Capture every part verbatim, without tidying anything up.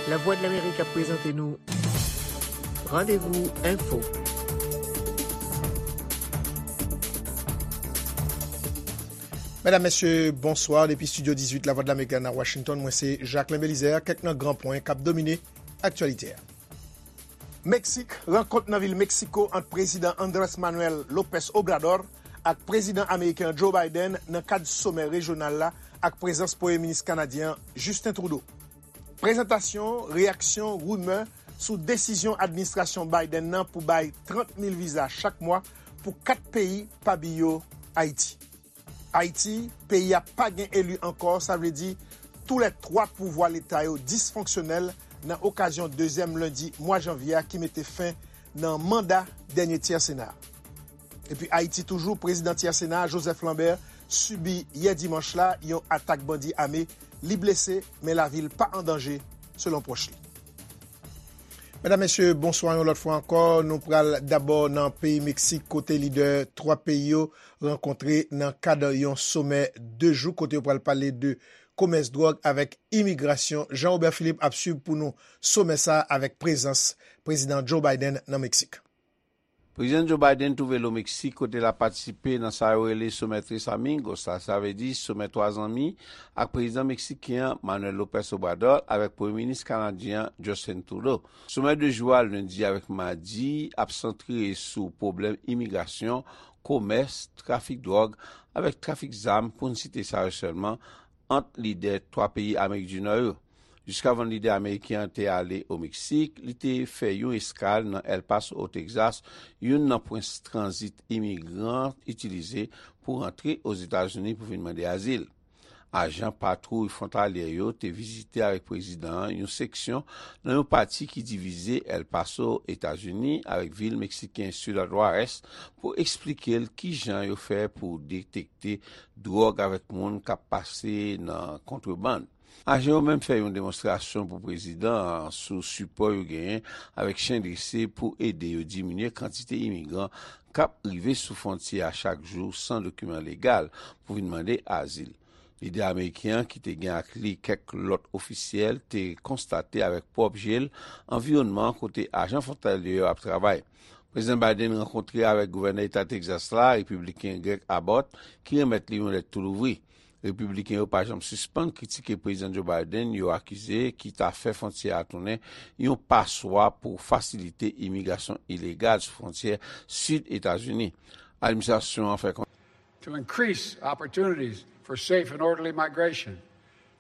Lavwadlamerik ap prezante nou Randevou Enfo. Medam, mesye, bonswa. Depi estidyo dizuit Lavwadlamerik la nan Washington, mwen se Jacquelin Belizaire. Kèk nan gran pwen k ap domine aktyalite a. Meksik, rankont nan vil Meksiko ant Prezidan Andrés Manuel López Obrador ak Prezidan ameriken Joe Biden nan kad somè rejyonal la ak prezans Premye Minis kanadyen an, Justin Trudeau. Prezantasyon, reyaksyon, rimè sou desizyon administrasyon Biden nan pou bay trant mil viza chak mwa pou kat peyi, pami yo Ayiti. Ayiti, peyi a pa gen eli ankò, sa vle di tou lè twa pouvwa leta yo disfonksyonèl nan okazyon dezyèm lendi mwa janvye a ki mete fen nan manda dènye tyè Sena a. Epi Ayiti toujou, prezidan tyè Sena a, Joseph Lambert, sibi yè dimanch la yon atak bandi ame. Li blese, men lavi l pa an danje, selon pwòch li. Medam, mesye, bonswa yon lòt fwa ankò. Nou pral dabò nan peyi Meksik, kote lidè twa peyi yo rankontre nan kad yon somè de jou, kote yo pral pale de komès dwòg avèk imigrasyon. Jean Robert Philippe ap swiv pou nou somè sa a avèk prezans Prezidan Joe Biden nan Meksik. Prezidan Joe Biden twouve l o Meksik, kote l ap patisipe nan sa yo rele Somè Tres Amigos la, sa vle di Somè Twa Zanmi, ak prezidan meksiken an, Manuel López Obrador, avèk premye minis kanadyen an, Justin Trudeau. Somè de jou a, lendi avèk madi, ap santre sou pwoblèm imigrasyon, komès, trafik dwòg, avèk trafik zam, pou n site sa yo sèlman, ant lidè twa peyi Amerik di Nò yo. Jiskavan lidè ameriken an te ale o Meksik, li te fè yon eskal nan El Paso, o Texas, youn nan pwen tranzit imigran itilize pou rantre Ozetazini pou vin mande azil. Ajan patwouy fwontalyè yo te vizite avèk prezidan an yon seksyon nan yon pati ki divize El Paso, Etazini, avèk vil meksiken Ciudad Juárez pou eksplike l kijan yo fè pou detekte dwòg avèk moun k ap pase nan kontrebann. Ajan yo menm fè yon demonstrasyon pou prezidan an sou sipò yo genyen avèk chen drese pou ede yo diminye kantite imigran k ap rive sou fwontyè a chak jou san dokiman legal pou vin mande azil. Lidè ameriken an, ki te gen ak li kèk lòt ofisyèl, te konstate avèk pwòp je l anviwònman an kote ajan fwontalyè yo ap travay. Prezidan Biden rankontre avèk gouvènè eta Texas la, repibliken Greg Abbott, ki renmèt li yon lèt tou louvri. Repibliken yo pa janm sispann kritike Prezidan Joe Biden, yo akize, ki ta fè fwontyè a tounen yon paswa pou fasilite imigrasyon ilegal sou fwontyè sid Etazini. Administrasyon an fè konnen. To increase opportunities for safe and orderly migration,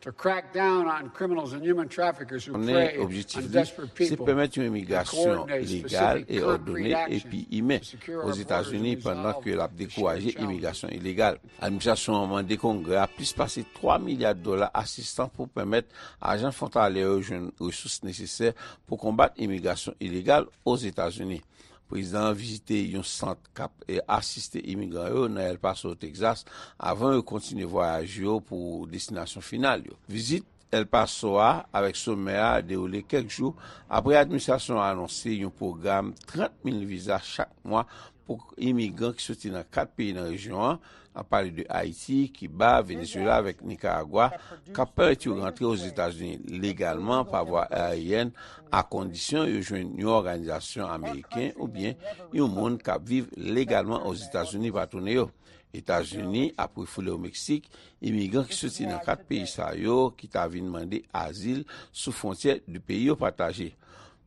to crack down on criminals and human traffickers who prey on desperate people, and coordinate specific concrete action to secure our borders and our southern border. Konnen objektif li se pèmèt yon imigrasyon legal e òdone epi imen Ozetazini pandan ke l ap dekouraje imigrasyon ilegal. Administrasyon an mande Kongrè a plis pase twa milya dola asistans pou pèmèt ajan fwontalyè yo jwenn resous nesesè pou konbat imigrasyon ilegal Ozetazini. Prezidan an vizite yon sant k ap, e, asiste imigran yo nan El Paso, Texas, avan yo kontinye vwayaj yo pou destinasyon final yo. Vizit El Paso a avèk somè a dewoule kèk jou apre administrasyon an anonse yon pwogram trant mil viza chak mwa pou imigran ki soti nan kat peyi nan rejyon an, ap pale de Ayiti, Kiba, Venezuela avèk Nikaragwa, k ap pèmèt yo rantre Ozetazini legalman pa vwa ayeryèn, a kondisyon yo jwenn yon òganizasyon ameriken oubyen yon moun k ap viv legalman Ozetazini pa tounen yo. Etazini ap refoule o Meksik imigran ki soti nan kat peyi sa yo ki ta vin mande azil sou fwontyè de peyi yo pataje.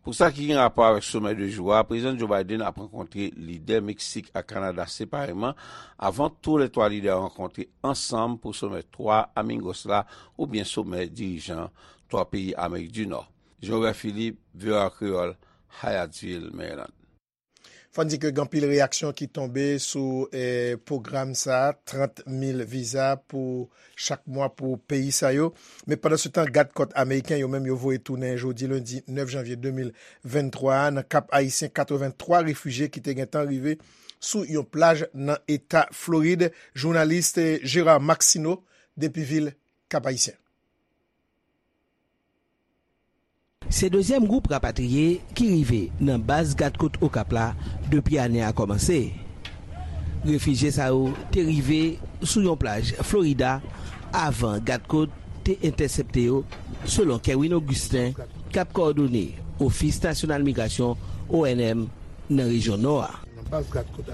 Pou sa ki gen rapò avèk somè de jou a, Prezidan Joe Biden ap rankontre lidè Meksik ak Kanada separeman avan toulètwa lidè yo rankontre ansanm pou somè Twa Amigos la, oubyen somè dirijan twa peyi Amerik di Nò. Jean Robert Philippe, V O A Kreyòl, Hyattsville, Maryland. Fò n di ke gen anpil reyaksyon ki tonbe sou, eh, pwogram sa a, trant mil viza pou chak mwa pou peyi sa yo. Men pandan se tan, gad kòt ameriken yo menm yo voye tounen jodi lendi nèf janvye de mil venntwa a nan Kap Ayisyen katrevenntwa refijye ki te gentan rive sou yon plaj nan eta Florid. Jounalis, eh, Gérard Maxineau depi vil Kap Ayisyen. Se dezyèm gwoup rapatriye ki rive nan baz gad kot Okap la depi ane a kòmanse. Refijye sa yo te rive sou yon plaj Florida avan gadkòt te entèsepte yo, selon Kerwin Augustin, k ap kowòdone Ofis Nasyonal Migrasyon, O N M, nan rejyon Nò a. Nan baz gadkòt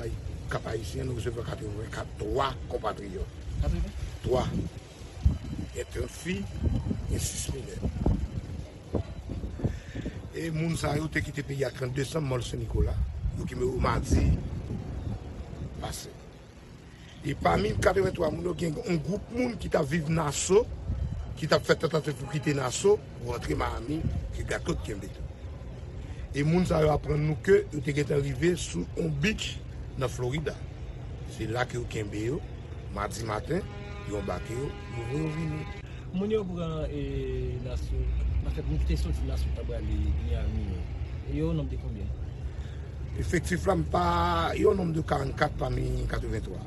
Kap Ayisyen, nou resevwa katrevenkat twa konpatriyòt. Twa. Gen trant fi, gen sis minè. E moun sa yo te kite peyi a trant desanm, mò Sen Nikola. Yo kenbe yo madi pase. E pami katreventwa moun yo, gen yon gwoup moun ki t ap viv Naso, ki t ap fè tantativ pou kite Naso, pou rantre Miami, ke gadkòt kenbe tou. E moun sa yo aprann nou ke yo te gentan rive sou yon beach nan Florida. Se la ke yo kenbe yo, madi maten, yo anbake yo, yo voye yo vini. Moun yo pran e, Naso, anfèt, moun ki te soti Naso t ap prale Miami yo, yo nonb de konbyen? Efektif la, m pa, yo nonb de karannkat pami katreventwa.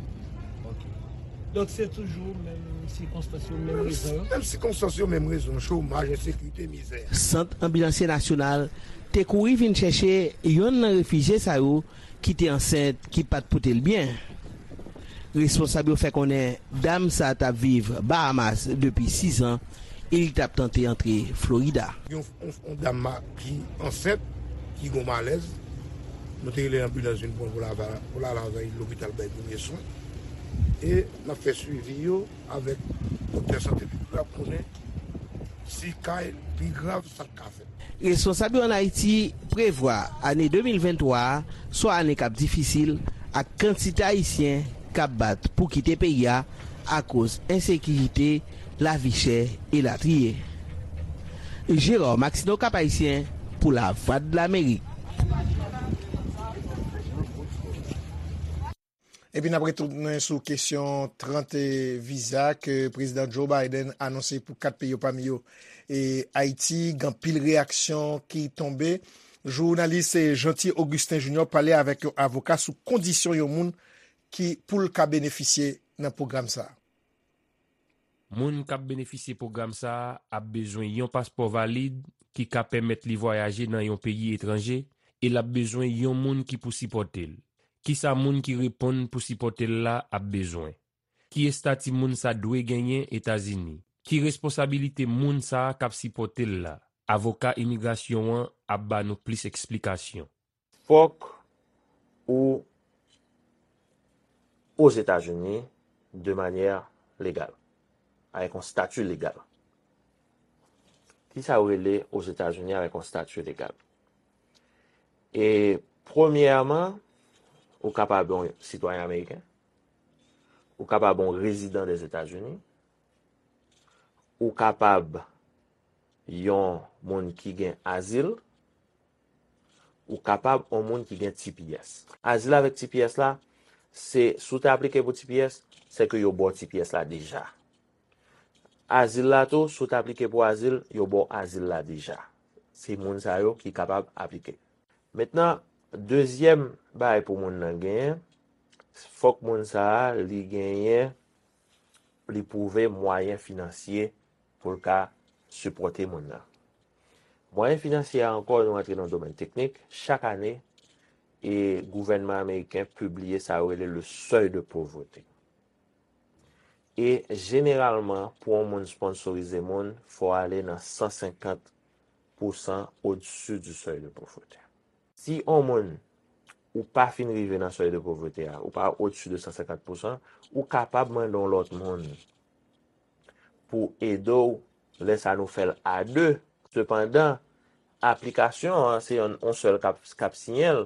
Ok. Donk, se toujou menm sikonstans yo, menm rezon yo? Menm sikonstans yo, menm rezon, chomaj, ensekirite, mizè. Sant Anbilansye Nasyonal te kouri vin chèche yonn nan refijye sa yo ki te ansent, ki pa t pote l byen. Responsab yo fè konnen dam sa a t ap viv Bahamas depi sis an e li t ap tante antre Florida. Yon, yon, yon dam ma-, ki ansent, ki gon malèz. Nou te rele anbilans vin pran pou l al, pou l al avè l lopital bay premye swen. E n ap fè swivi yo avèk doktè sante piblik la pou konnen si ka pi grav sa k ka fèt. Responsab yo ann Ayiti prevwa ane de mil venntwa a swa ane k ap difisil ak kantite Ayisyen k ap bat pou kite peyi a akoz ensekirite, lavi chè, elatriye. Gérard Maxineau, Cap Haïtien, pou Lavwadlamerik. Epi n ap retounen sou kesyon trant viza ke Prezidan Joe Biden anonse pou kat peyi yo, pami yo, e, Ayiti. Gen anpil reyaksyon ki tonbe. Jounalis, e, Jeanty Augustin Junior pale avèk yon avoka sou kondisyon yon moun ki pou l ka benefisye nan pwogram sa a. Moun k ap benefisye pwogram sa a ap bezwen yon paspò valid ki ka pèmèt li vwayaje nan yon peyi etranje e l ap bezwen yon moun ki pou sipòte l. Kisa moun ki reponn pou sipòte l la ap bezwen? Ki estati moun sa dwe genyen Etazini? Ki responsabilite moun sa a k ap sipòte l la? Avoka imigrasyon an ap ba nou plis eksplikasyon. Fòk ou Ozetazini de manyè legal, avèk yon stati legal. Kisa yo rele Ozetazini avèk yon stati legal? E premyèman, ou kapab yon sitwayen ameriken, ou kapab yon rezidan Dèzetazini, ou kapab yon moun ki gen azil, ou kapab yon moun ki gen T P S. Azil avèk T P S la, se, si w te aplike pou T P S, se ke yo ba w T P S la deja. Azil la tou, si w te aplike pou azil, yo ba w azil la deja. Se moun sa yo ki kapab aplike. Mentnan, dezyèm bagay pou moun nan genyen, fòk moun sa a, li genyen, li pwouve mwayen finansye pou l ka sipòte moun nan. Mwayen finansye a ankò, nou rantre nan domèn teknik, chak ane, e gouvènman ameriken pibliye sa yo rele le seuil de pauvreté. E jeneralman, pou yon moun sponsorize moun, fò w ale nan san senkant pousan au-dessus du seuil de pauvreté. Si yon moun, ou pa fin rive nan seuil de pauvreté a, ou pa au-dessus de san senkant pousan, ou kapab mande yon lòt moun pou ede w, lè sa nou fè l a de. Sepandan, aplikasyon an, se yon, yon sèl k ap, k ap siyen l,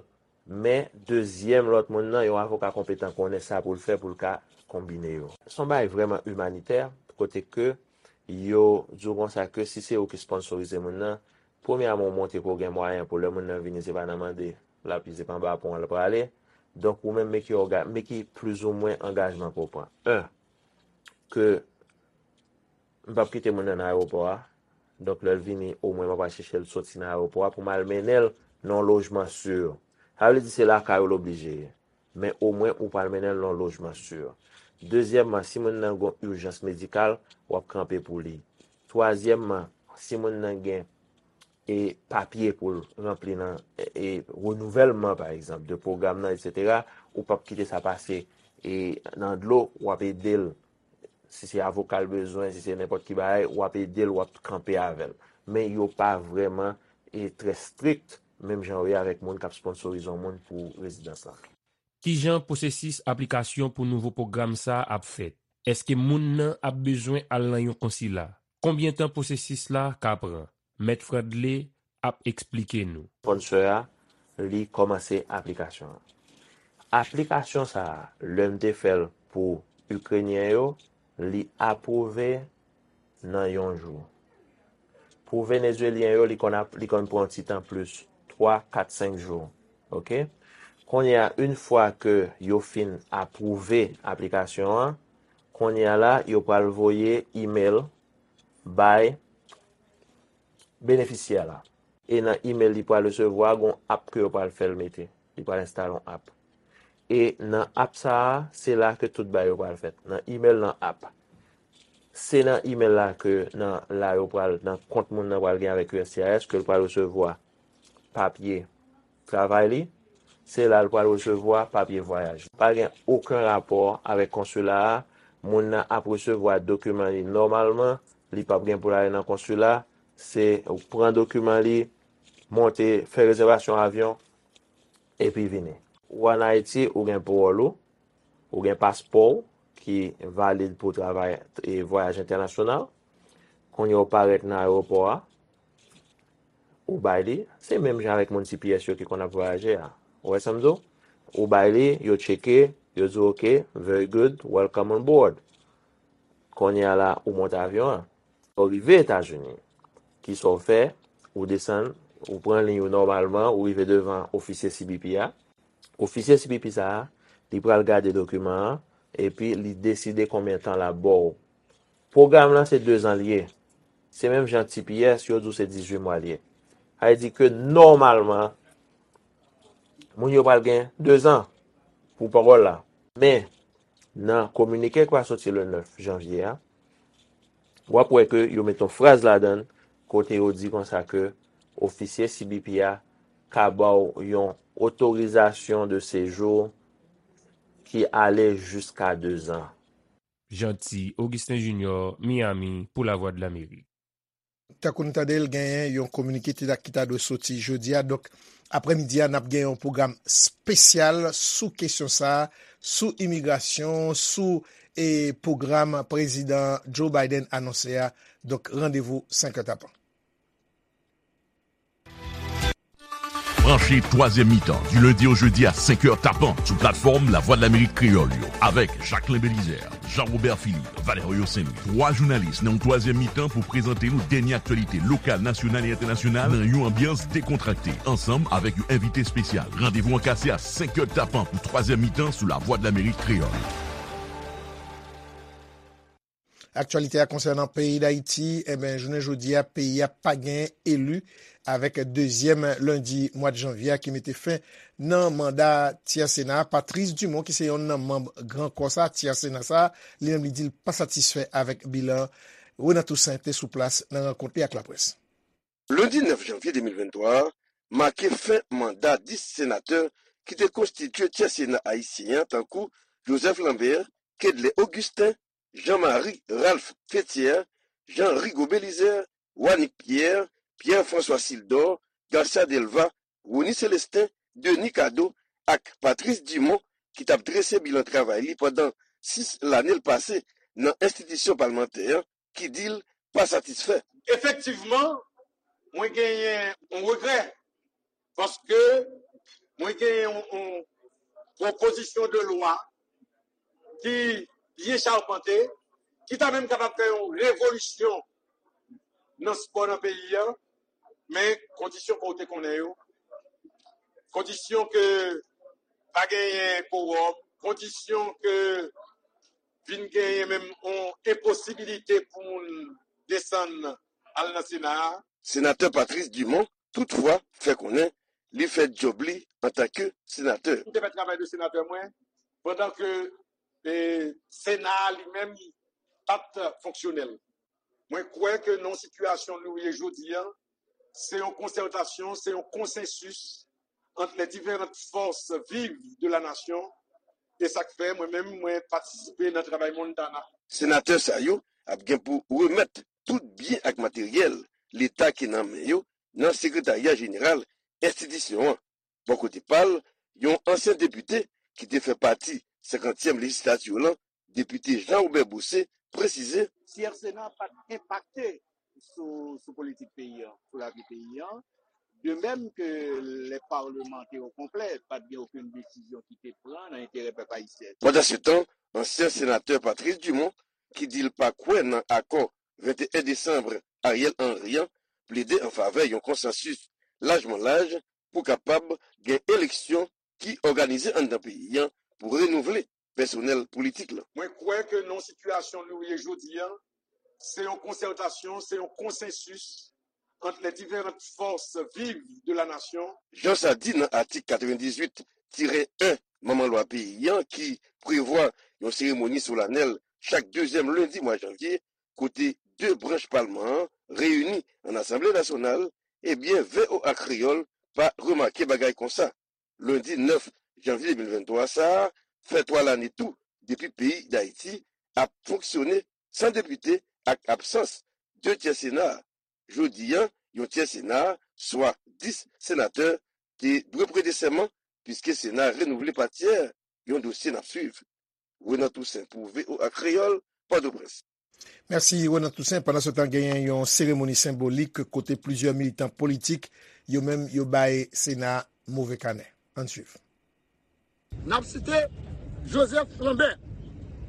men dezyèm lòt moun nan, yon avoka konpetan konnen sa pou l fè pou l ka konbine yo. Se yon bagay vrèman imanitè, kote ke yo di w konsa ke si se ou ki sponsorize moun nan, premyèman, ou montre ke w gen mwayen pou lè moun nan vini, se pa nan mande l ap ye, se pa anba pon an l prale. Donk, ou menm, men ki òga-, men ki plizoumwen angajman ke w pran. En, ke m p ap kite moun nan nan ayewopò a. Donk, lè l vini, omwen m ap al chèche l soti nan ayewopò a pou m al mennen l nan yon lojman si. Sa vle di se lakay ou l oblije ye. Men omwen ou pral mennen l nan yon lojman si. Dezyèmman, si moun nan gen yon ijans medikal, w ap kanpe pou li. Twazyèmman, si moun nan gen e papye pou l ranpli nan, e, e, renouvèlman, pa egzanp, de pwogram nan, etsetera, ou p ap kite sa pase, e, nan dlo, w ap ede l si se avoka l bezwen, si se nenpòt ki bagay, w ap ede l, w ap kanpe avè l. Men yo pa vrèman e trè strik, menm jan yo ye avèk moun k ap sponsorize yon moun pou rezidans lan. Kijan pwosesis aplikasyon pou nouvo pwogram sa a ap fèt? Èske moun nan ap bezwen al nan yon konsila? Konbyen tan pwosesis la ka pran? Mèt Fredley ap eksplike nou. Sponsor a, li kòmanse aplikasyon an. Aplikasyon sa a, lè m te fè l pou Ikrenyen yo, li apwouve nan yon jou. Pou Venezuelyen yo, li konn ap, li konn pran yon ti tan plis, twa, kat, senk jou. Oke? Kounye a, yon fwa ke yo fin apwouve aplikasyon an, kounye a la, yo pral voye email bay benefisyè la. E nan email li pral resevwa, gon app ke yo pral fè l mete. Li pral enstale yon app. E nan app sa a, se la ke tout bagay yo pral fèt. Nan email, nan app. Se nan email la ke nan la yo pral, nan kont moun nan pral gen avèk U S C I S, ke l pral resevwa papye travay li. Se la l pral resevwa papye vwayaj. Pa gen okenn rapò avèk konsila a. Moun nan ap resevwa dokiman li nòmalman. Li p ap gen pou l ale nan konsila. Se ou pran dokiman li, monte, fè rezèvasyon avyon, epi vini. Ou ann Ayiti, ou gen pawòl ou, ou gen paspò w ki valid pou travay e vwayaj entènasyonal. Kounye a ou parèt nan ayewopò a, ou bay li, se menm jan avèk moun T P S yo ki konn ap vwayaje a. Ou wè sa m di w? Ou bay li, yo tcheke, yo di w, "Ok, very good, welcome on board." Kounye a la, ou monte avyon an. Ou rive Etazini, kisa w fè? Ou desann, ou pran liy ou nòmalman, ou rive devan ofisye C B P a. Ofisye C B P sa a, li pral gade dokiman an, epi li deside konbyen tan l ap ba w. Pwogram lan se dezan l ye. Se menm jan T P S, yo di w se dizuit mwa l ye. Sa vle di ke nòmalman, moun yo pral gen dezan pou pawòl la. Men, nan kominike ki pral soti le nèf janvye a, w ap wè ke yo met yon fraz ladan l kote yo di konsa ke ofisye C B P a ka ba w yon otorizasyon de sejou ki ale jiska dezan. Jeanty Augustin Junior, Miami, pou Lavwadlamerik. Tankou n tande l, genyen yon kominike ki ta, ki ta dwe soti jodi a. Donk, aprèmidi a, n ap gen yon pwogram espesyal sou kesyon sa a, sou imigrasyon, sou, e, pwogram Prezidan Joe Biden anonse a. Donk, randevou senk è tapan. Branche twazyèm mitan, du lundi au jeudi à cinq heures tapant, sou platfòm Lavwadlamerik Kreyòl yo, avèk Jacquelin Belizaire, Jean-Robert Philippe, Valerio Saint-Louis. Twa jounalis nan yon twazyèm mitan pou prezante nou dènye aktyalite lokal, nasyonal e entènasyonal nan yon anbyans dekontrakte, ansanm avèk yon envite espesyal. Randevou an kase a senk è tapant pou twazyèm mitan sou Lavwadlamerik Kreyòl. Aktyalite a konsènan peyi Dayiti, enben, jounen jodi a, peyi a pa gen eli avèk dezyèm lendi mwa janvye a ki mete fen nan manda Tyè Sena a. Patrice Dumont, ki se yonn nan manm Gran Kò sa, Tyè Sena sa, li menm li di l pa satisfè avèk bilan. Renan Toussaint te sou plas nan rankont li ak laprès. Lendi nèf janvye de mil venntwa a make fen manda dis senatè ki te konstitye Tyè Sena ayisyen an, tankou Joseph Lambert, Kedley Augustin, Jean Marie Ralph Féthière, Jean Rigaud Bélizaire, Wanick Pierre, Pierre François Sildor, Garcia Delva, Rony Célestin, Denis Cadeau ak Patrice Dumont, ki t ap drese bilan travay li pandan sis lane l pase nan enstitisyon palmantè an, ki di l pa satisfè. Efektivman, mwen genyen yon regrè, paske mwen genyen yon, yon pwopozisyon de lwa ki byen chapante, ki ta menm kapab fè yon revolisyon nan spò nan peyi a, men kondisyon ke w te konnen yo, kondisyon ke pa genyen kowòm, kondisyon ke vin genyen menm yon enposibilite pou moun desann al nan Sena a. Senatè Patrice Dumont, toutfwa, fè konnen li fè djòb li antanke senatè. M te fè travay de senatè mwen, pandan ke, e, Sena a li menm pa t fonksyonèl. Mwen kwè ke nan sitiyasyon nou ye jodi a, se yon konsètasyon, se yon konsensis ant les différentes forces vives de la nation, e sa k fè mwen menm, mwen patisipe nan travay Montana. Senatè sa yo ap gen pou remèt tout byen ak materyèl Leta ki nan men yo nan Sekretarya Jeneral enstitisyon an. Bò kote pa l, yon ansyen depite ki te fè pati senkantyèm lejislati lan, depite Jean Robert Boucé, presize. Tiè Sena pa t enpakte sou, sou politik peyi an, sou lavi peyi an. De menm ke lè palman te o konplè, pa t gen okenn desizyon ki te pran nan enterè pèp ayisyen. Pandansetan, ansyen senatè Patrice Dumont, ki di l pa kwè nan akò venteyen desanm Ariel Henry an, plede an favè yon konsansis lajman laj pou kapab gen eleksyon ki òganize anndan peyi an pou renouvle pèsonèl politik lan. Mwen kwè ke nan sitiyasyon nou ye jodi a, se yon konsètasyon, se yon konsansis ant les différentes forces vives de la nation. Jan sa di nan atik katrevendizuit tirè en manman lwa peyi an ki prevwa yon seremoni solanèl chak dezyèm lendi mwa janvye, kote de branch palman an reyini an Asanble Nasyonal, ebyen, V O A Kreyòl pa remake bagay konsa. Lendi nèf janvye de mil venntwa sa a fè twa lane tou depi peyi Dayiti ap fonksyone san depite ak absans de tyè Sena a. Jodi a, yon tyè Sena a, swa dis senatè, te dwe prete sèman, piske Sena a renouvle pa tyè, yon dosye n ap swiv. Renan Toussaint pou V O A Kreyòl, Pòtoprens. Mèsi, Renan Toussaint. Pandansetan, genyen yon seremoni senbolik kote plizyè militan politik, yo menm, yo bay Sena a move kanè. Ann swiv. N ap site Joseph Lambert,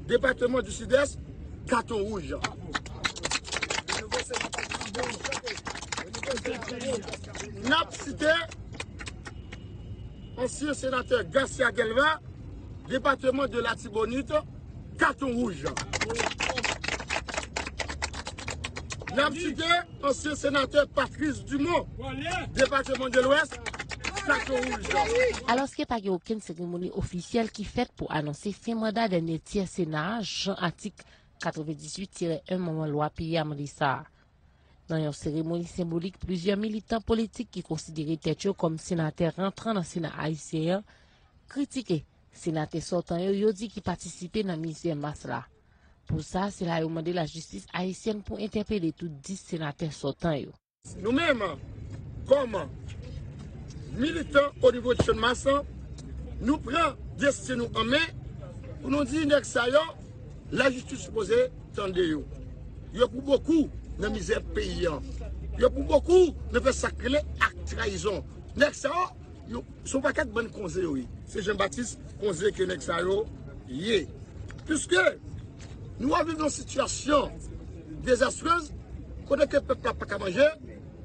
depatman di Sidès, katon wouj. N ap site ansyen senatè Garcia Guelva, depatman de Latibonit, katon wouj. N ap site ansyen senatè Patrice Dumont, depatman de Lwès, katon wouj. Alòske pa gen okenn seremoni ofisyèl ki fèt pou anonse fen manda dènye tyè Sena a, jan atik katrevendizuit tirè en manman lwa peyi a mande sa a. Nan yon seremoni senbolik, plizyè militan politik ki konsidere tèt yo kòm senatè rantran nan Sena ayisyen an kritike senatè sòtan yo, yo di ki patisipe nan mizè mas la. Pou sa, se la yo mande lajistis ayisyèn pou entèpele tout dis senatè sòtan yo. Nou menm, kòm militan o nivo de Channmas, nou pran desten nou an men pou nou di nèg sa yo, lajistis sipoze tande yo. Yo pou bokou nan mizè peyi an. Yo pou bokou nan fè sa k rele ak trayizon. Nèg sa yo, yo, se yon pakèt bann konze yo ye. Se Jean Baptiste Konze ke nèg sa yo ye. Piske nou ap viv nan sitiyasyon dezastrez, kote ke pèp la pa ka manje,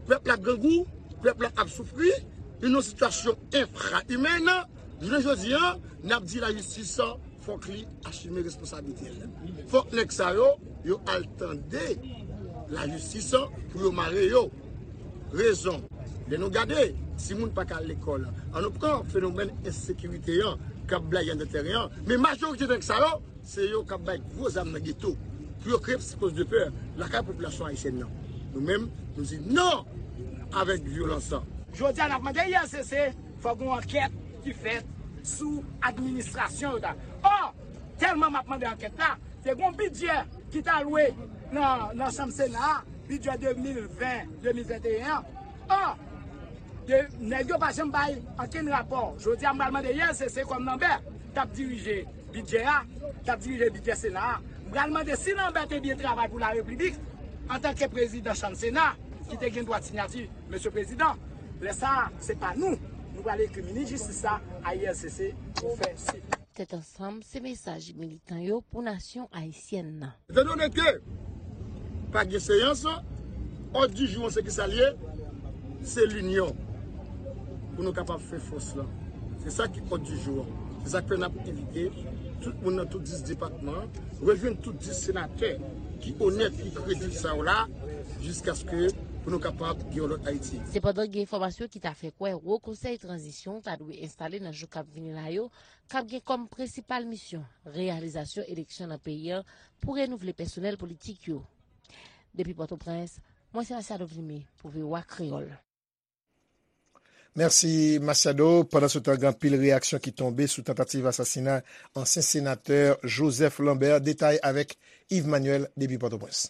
pèp la grangou, pèp la ap soufri, nou nan sitiyasyon enfra-imèn. Jounen jodi a, n ap di lajistis fòk li asime responsablite l. Fòk nèg sa yo, yo al tande lajistis pou yo mare yo. Rezon, lè nou gade, timoun pa ka al lekòl. An nou pran fenomèn ensekirite an k ap blayi anndan tèren an. Men majorite nèg sa yo, se yo k ap bay gwo zam nan geto pou yo kreye psikoz de pè lakay popilasyon ayisyèn nan. Nou menm, nou di non avèk vyolans lan. Jodi a, n ap mande I R C C, fòk gon ankèt ki fèt sou administrasyon yo ta. Ò, tèlman m ap mande ankèt la, te gon bidjè ki t alwe nan, nan chanm Sena a, bidjè de mil ven, de mil venteyen an. Ò, de, nèg yo pa janm bay ankenn rapò. Jodi a, m pral mande I R C C kòm Lambert t ap dirije bidjè a, t ap dirije bidjè Sena a. M pral mande si Lambert te byen travay pou larepiblik antanke prezidan chanm Sena ki te gen dwa sinyati, Mesye Prezidan. Lè sa a, se pa nou. Nou pral ekri minis jistis la a I R C C pou fè swiv. Tèt ansanm, se mesaj militan yo pou nasyon ayisyèn nan. Etandone ke pa gen seyans, òd di jou an se kisa l ye? Se linyon pou nou kapab fè fòs lan. Se sa ki òd di jou an. Se sa k fè n ap envite tout moun nan tout dis depatman an, rejwenn tout dis senatè ki onèt, ki kredib sa yo la, jiskaske pou nou kapab gen yon lòt Ayiti. Sepandan, gen enfòmasyon ki ta fè kwè Wo Konsèy Tranzisyon ta dwe enstale nan jou k ap vini la yo, k ap gen kòm prensipal misyon reyalizasyon eleksyon nan peyi an pou renouvle pèsonèl politik yo. Depi Pòtoprens, mwen se Machado Vimy pou V O A Kreyòl. Mèsi, Masiado. Pandansetan, gen anpil reyaksyon ki tonbe sou tantativ asasina ansyen senatè Joseph Lambert. Detay avèk Yves Manuel depi Pòtoprens.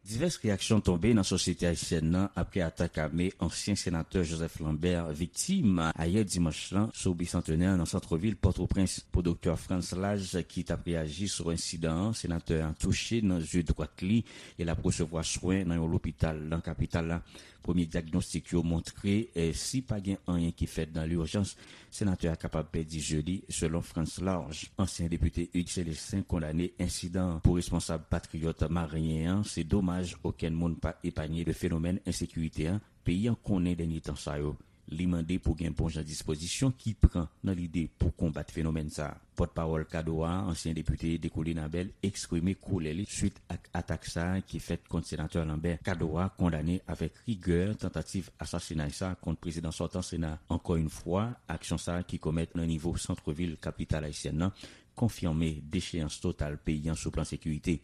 Divès reyaksyon tonbe nan sosyete ayisyèn nan apre atak ame ansyen senatè Joseph Lambert viktim ayè dimanch lan sou Bicentenaire nan sant vil Pòtoprens. Pou Doktè Frantz Lage, ki t ap reyaji sou ensidan an, senatè a touche nan zye dwat li e l ap resevwa swen nan yon lopital nan kapital la. Premye dyagnostik yo montre, eh, si pa gen anyen ki fèt nan lijans, senatè a kapab pèdi zye li, selon Frantz Lage. Ansyen depite Hugues Célestin kondane ensidan an. Pou responsab patriyòt maryen an, se domaj okenn moun pa epanye de fenomèn ensekirite an peyi an konnen dènye tan sa yo. Li mande pou gen bon jan dispozisyon ki pran nan lide pou konbat fenomèn sa a. Pòtpawòl Kadoa, ansyen depite Dekoulin Abel, eksprime kolè li swit ak atak sa a ki fèt kont senatè Lambert. Kadoa kondane avèk rigè tantativ asasinay sa a kont prezidan sòtan Sena. Ankò yon fwa, aksyon sa a ki komèt nan nivo sant vil kapital ayisyèn nan konfime decheyans total peyi an sou plan sekirite.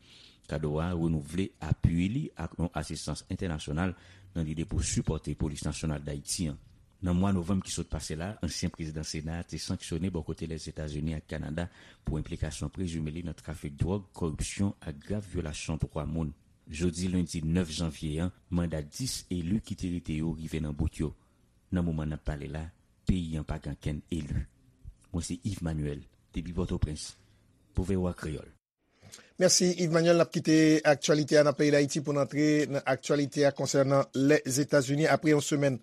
Kadoa renouvle apui li ak yon asistans entènasyonal nan lide pou sipòte Polis Nasyonal Dayiti an. Nan mwa novanm ki sot pase la, ansyen prezidan Sena a te sanksyone bò kote Lèzetazini ak Kanada pou enplikasyon prezime li nan trafik dwòg, kòripsyon ak grav vyolasyon dwa moun. Jodi lendi nèf janvye an, manda dis eli ki te rete yo rive nan bout yo. Nan moman n ap pale la, peyi an pa gen ankenn eli. Mwen se Yves Manuel, depi Pòtoprens, pou V O A Kreyòl. Mèsi, Yves Manuel. N ap kite aktyalite a nan peyi Dayiti pou n antre nan aktyalite a konsènan Lèzetazini. Apre yon semèn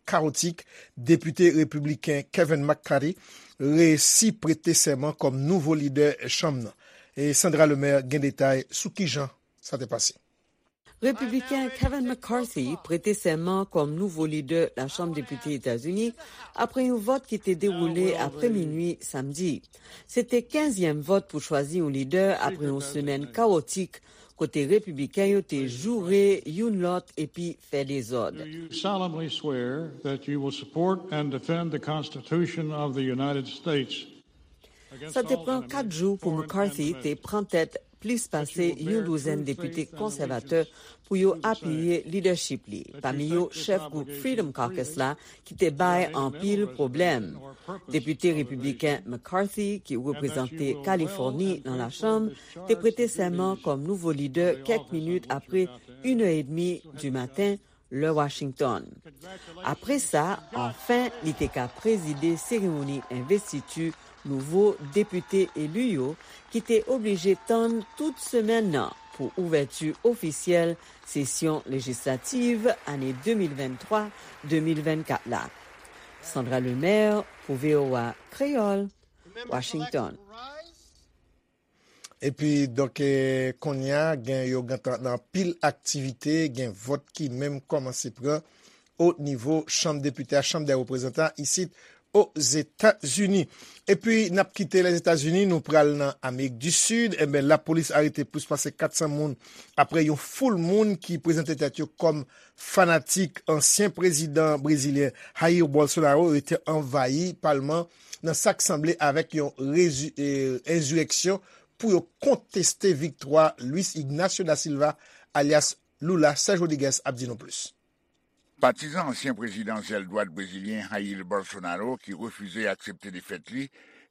kawotik, depite repibliken Kevin McCarthy resi prete sèman kòm nouvo lidè chanm nan. E Sandra Lemaire gen detay sou kijan sa te pase. Repibliken Kevin McCarthy prete sèman kòm nouvo lidè Lachanm Depite Etazini apre yon vòt ki te dewoule apre minui samdi. Se te kenzyèm vòt pou chwazi yon lidè apre yon semèn kawotik kote Repibliken yo te joure youn lòt epi fè dezòd. Do you solemnly swear that you will support and defend the Constitution of the United States? Sa te pran kat jou pou McCarthy te pran tèt plis pase yon douzèn depite konsèvatè pou yo apiye lidèchip li, pami yo chèf gwoup Freedom Caucus la, ki te bay anpil pwoblèm. Depite repibliken McCarthy, ki reprezante Kalifòni nan Lachanm, te prete sèman kòm nouvo lidè kèk minit apre inè edmi di maten, lè Washington. Apre sa, anfen, li te ka prezide seremoni envestiti nouvo depite eli yo, ki te oblije tann tout semèn nan pou ouvèti ofisyèl sesyon lejislativ ane de mil venntwa de mil vennkat la. Sandra Lemaire pou V O A Kreyòl, Washington. Epi, donk, eh, kounye a, gen yo gentan nan anpil aktivite, gen vòt ki menm kòmanse pran o nivo chanm depite a, chanm dè reprezantan isit Ozetazini. Epi, n ap kite Lèzetazini, nou pral nan Amerik di Sid. Enben, lapolis arete plis pase kat san moun apre yon foul moun ki prezante tèt yo kòm fanatik ansyen prezidan brezilyen Jair Bolsonaro rete anvayi palman nan sa k sanble avèk yon rezi-, eh, enzireksyon pou yo konteste viktwa Luis Ignacio da Silva, alyas Lula. Serge Rodriguez ap di nou plis. Patizan ansyen prezidan zèl dwat brezilyen Jair Bolsonaro, ki refize aksepte defèt li,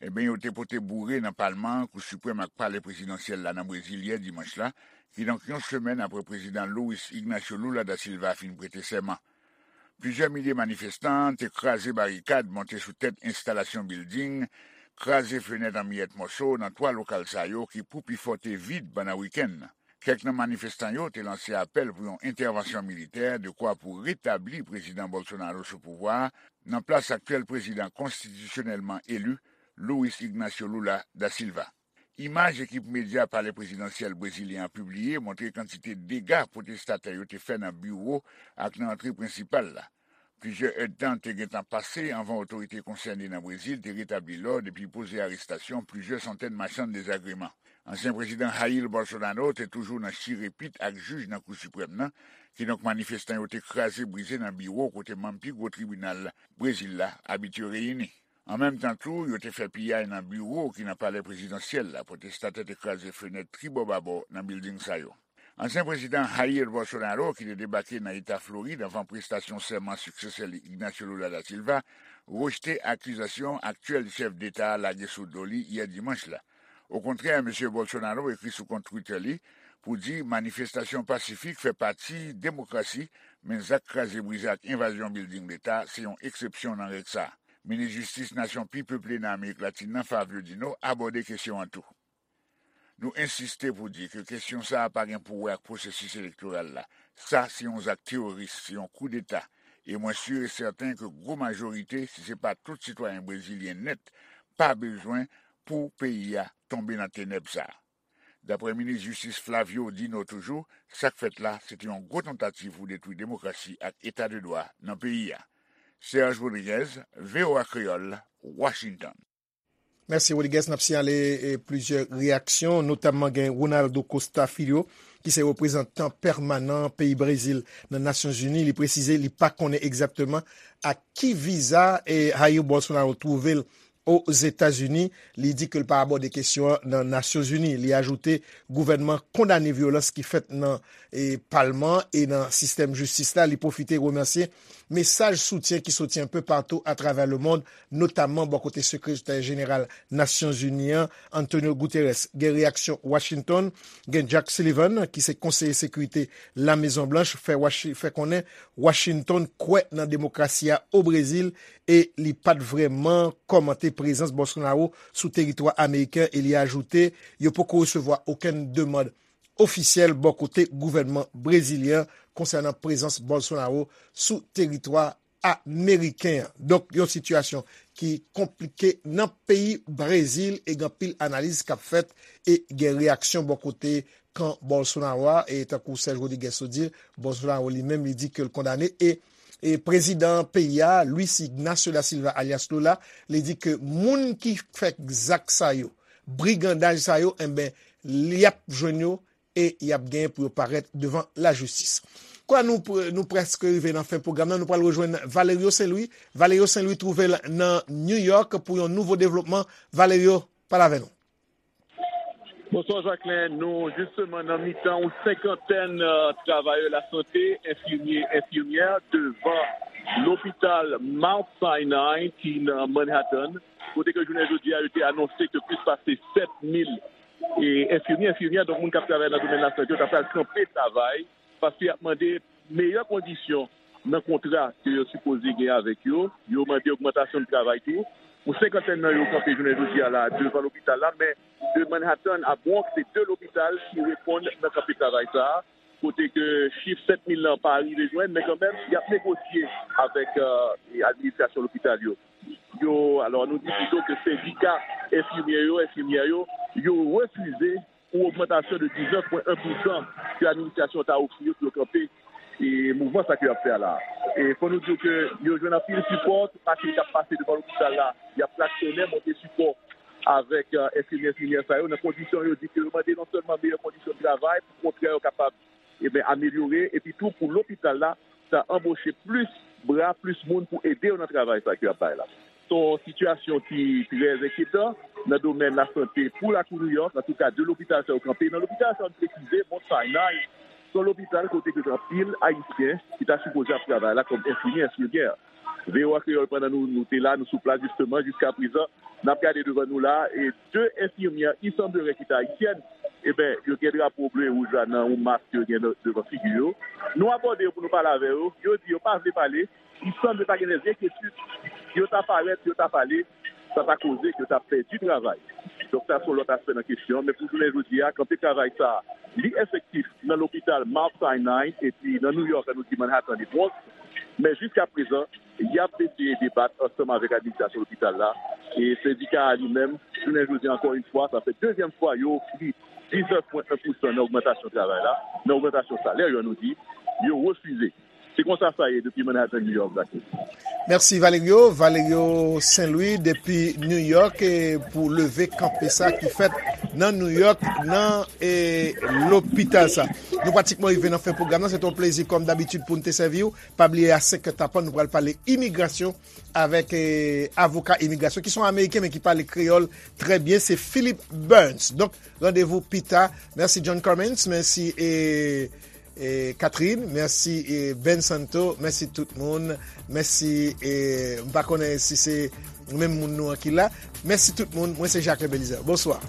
enben, yo te pote boure nan palman, Kou Siprèm ak palè prezidansyèl la nan Brezil yè dimanch la, kidonk yon semèn apre prezidan Luis Ignacio Lula da Silva fin prete sèman. Plizyè milye manifestan te kraze barikad, monte sou tèt enstalasyon bilding, kraze fenèt an miyèt mòso nan twa lokal sa yo ki pou pifò te vid pandan wikenn nan. Kèk nan manifestan yo te lanse apèl pou yon entèvansyon militè dekwa pou retabli prezidan Bolsonaro sou pouvwa a nan plas aktyèl prezidan konstitisyonèlman eli, Luis Ignacio Lula da Silva. Imaj ekip medya palè prezidansyèl brezilyen an pibliye montre kantite dega pwotestatè yo te fè nan biwo ak nan antre prensipal la. Plizyè èdtan te gentan pase anvan otorite konsène nan Brezil te retabli lòd epi poze arestasyon plizyè santèn machann dezagreman. Ansyen prezidan Jair Bolsonaro te toujou nan chire pit ak jij nan Kou Siprèm nan, kidonk manifestan yo te kraze brize nan biwo kote manm pi gwo tribinal Brezil la abitye reyini. An menm tan tou, yo te fè piyay nan biwo ki nan palè prezidansyèl la, pwotestatè te kraze fenèt tribò babò nan bilding sa yo. Ansyen prezidan Jair Bolsonaro, ki te debake nan eta Florid anvan prestasyon sèman siksesè li Ignacio Lula da Silva, rejte akizasyon aktyèl chèf deta a lage sou do li yè dimanch la. Okontrè, mesye Bolsonaro ekri sou kont Twitter li pou di manifestasyon pasifik fè pati demokrasi, men zak kraze brize ak envazyon bilding leta se yon eksepsyon nan règ sa a. Minis jistis nasyon pi peple nan Amerik Latin nan, Fabio Dino, abòde kesyon an tou. Nou ensiste pou di ke kesyon sa a pa gen pou wè ak pwosesis elektoral la. Sa se yon zak teworis, se yon koudeta. E mwen si e sèten ke gwo majorite, si se pa tout sitwayen brezilyen nèt, pa bezwen pou peyi a tonbe nan tenèb sa a. Daprè minis jistis Flavio Dino toujou, sa k fèt la, se te yon gwo tantativ pou detwi demokrasi ak eta de dwa nan peyi a. Serge Rodriguez, V O A Kreyòl, Washington. Mèsi, Rodriguez. N ap siyale e, plizyè reyaksyon, notamman gen Ronaldo Costa Filho, ki se reprezantan pèmanan peyi Brezil nan Nasyonzini. Li presize li pa konnen egzakteman ak ki viza e Jair Bolsonaro twouve l Ozetazini. Li di ke l pa abòde kesyon an nan Nasyonzini. Li ajoute gouvènman kondane vyolans ki fèt nan e, palman e nan sistèm jistis la. Li pwofite remèsye mesaj soutyen ki soti enpe patou atravè lemonn, notamman bò kote sekretè jeneral Nasyonzini an, Antonio Guterres. Gen reyaksyon Washington, gen Jack Sullivan, ki se konseye sekirite Lamezon Blanch, fè, Washi- fè konnen Washington kwè nan demokrasi a o Brezil e li pa t vrèman kòmante prezans Bolsonaro sou teritwa ameriken e li ajoute yo poko resevwa okenn demann ofisyèl bò kote gouvènman brezilyen konsènan prezans Bolsonaro sou teritwa ameriken an. Donk, yon sitiyasyon ki konplike nan peyi Brezil e gen anpil analiz k ap fèt e gen reyaksyon bò kote kan Bolsonaro a, e tankou Serge Rodriguez sot di, Bolsonaro li menm, li di ke l kondane, e, e prezidan peyi a, Luis Ignacio da Silva, alyas Lula, li di ke moun ki fè zak sa yo, brigandaj sa yo, enben, y ap jwenn yo e y ap genyen pou yo parèt devan lajistis. Kwa nou, pr- nou prèske rive nan fen pwogram nan, nou pral rejwenn Valerio Saint-Louis. Valerio Saint-Louis twouve l nan New York pou yon nouvo devlopman. Valerio, pale avè nou. Bonswa Jacquelin, nou jisteman nan mitan yon senkantèn euh, travayè lasante, enfimye, enfimyè, devan lopital Mount Sinai ki nan Manhattan, kote ke jounen jodi a yo te anonse ke plis pase sèt mil e enfimye, enfimyè, donk moun k ap travay nan domèn lasante yo ta pral kanpe travay paske y ap mande meyè kondisyon nan kontra ke yo sipoze gen avèk yo. Yo mande ogmantasyon de travay tou. Yon senkantèn nan yo kanpe jounen jodi a la devan lopital la, men de Manhattan a Bronx, se de lopital ki reponn nan kanpe travay sa a, kote ke chif sèt mil lan pa rive jwenn, men kanmenm, y ap negosye avèk euh, administrasyon lopital yo. Yo, alò, nou di pito ke sendika enfimye yo, enfimyè yo, yo refize yon ogmantasyon de diznèf pwen en pousan ke administrasyon ta ofri yo pou yo kanpe e mouvman sa ke y ap fè a la. E fò nou di w ke yo jwenn anpil sipò, tout machin k ap pase devan lopital la, y ap klaksonnen, monte sipò avèk euh, enfimyè, enfimyè sa yo, nan kondisyon yo di ke yo mande non sèlman meyè kondisyon de travay, pou kontrè yo kapab, e ben, amelyore, epi tou pou lopital la, ta anboche plis bra, plis moun pou ede yo nan travay sa ke y ap bay la. Se yon sitiyasyon ki trè enkyetan nan domèn lasante pou lakou Nouyòk, antouka de lopital sa yo kanpe. Nan lopital sa yo, n presize, Mount Sinai, se yon lopital kote ke gen anpil Ayisyen ki ta sipoze ap travay la kòm enfimyè, enfimyè. V O A Kreyòl, pandan nou, nou te la, nou sou plas jisteman, jiska prezan, n ap gade devan nou la, e de enfimyè, il semblerait ki ta ayisyèn, e ben, yo gen drapo ble e wouj la nan yon mask yo gen de- devan figi yo. Nou abòde yo pou nou pale avè yo, yo di yo pa vle pale, il semble pa gen de enkyetid, si yo ta parèt, si yo ta pale, sa ta koze ke yo ta pèdi travay. Donk sa se yon lòt aspè nan kesyon, men pou jounen jodi a, kanpe travay sa, li efektif nan lopital Mount Sinai, epi nan Nouyòk, nou di Manhattan e Bronx, men jiska prezan, y ap eseye debat ansanm avèk administrasyon lopital la. E sendika a li menm, jounen jodi a, ankò yon fwa, sa fè dezyèm fwa yo ofri diznèf pwen en pousan nan ogmantasyon travay la, nan ogmantasyon salè yo, nou di, yo refize. Se konsa sa ye depi Manhattan, New York, Black. Mèsi Valerio, Valerio Saint-Louis depi New York e pou leve kanpe sa ki fèt nan New York, nan e, lopital sa. Nou pratikman rive nan fen pwogram nan. Se te yon plezi, kòm dabitid, pou n te sèvi w. Pa bliye, a senk è tapan, nou pral pale imigrasyon avèk e, avoka imigrasyon ki se yon Ameriken, men ki pale kreyòl trè byen. Se Philip Burns. Donk, randevou pita. Mèsi, John Cummins. Mèsi, e, e, Catherine. Mèsi, e, Ben Santo. Mèsi tout moun. Mèsi, e, m pa konnen si se menm moun nou an ki la. Mèsi tout moun. Mwen se Jacques Belizaire. Bonswa.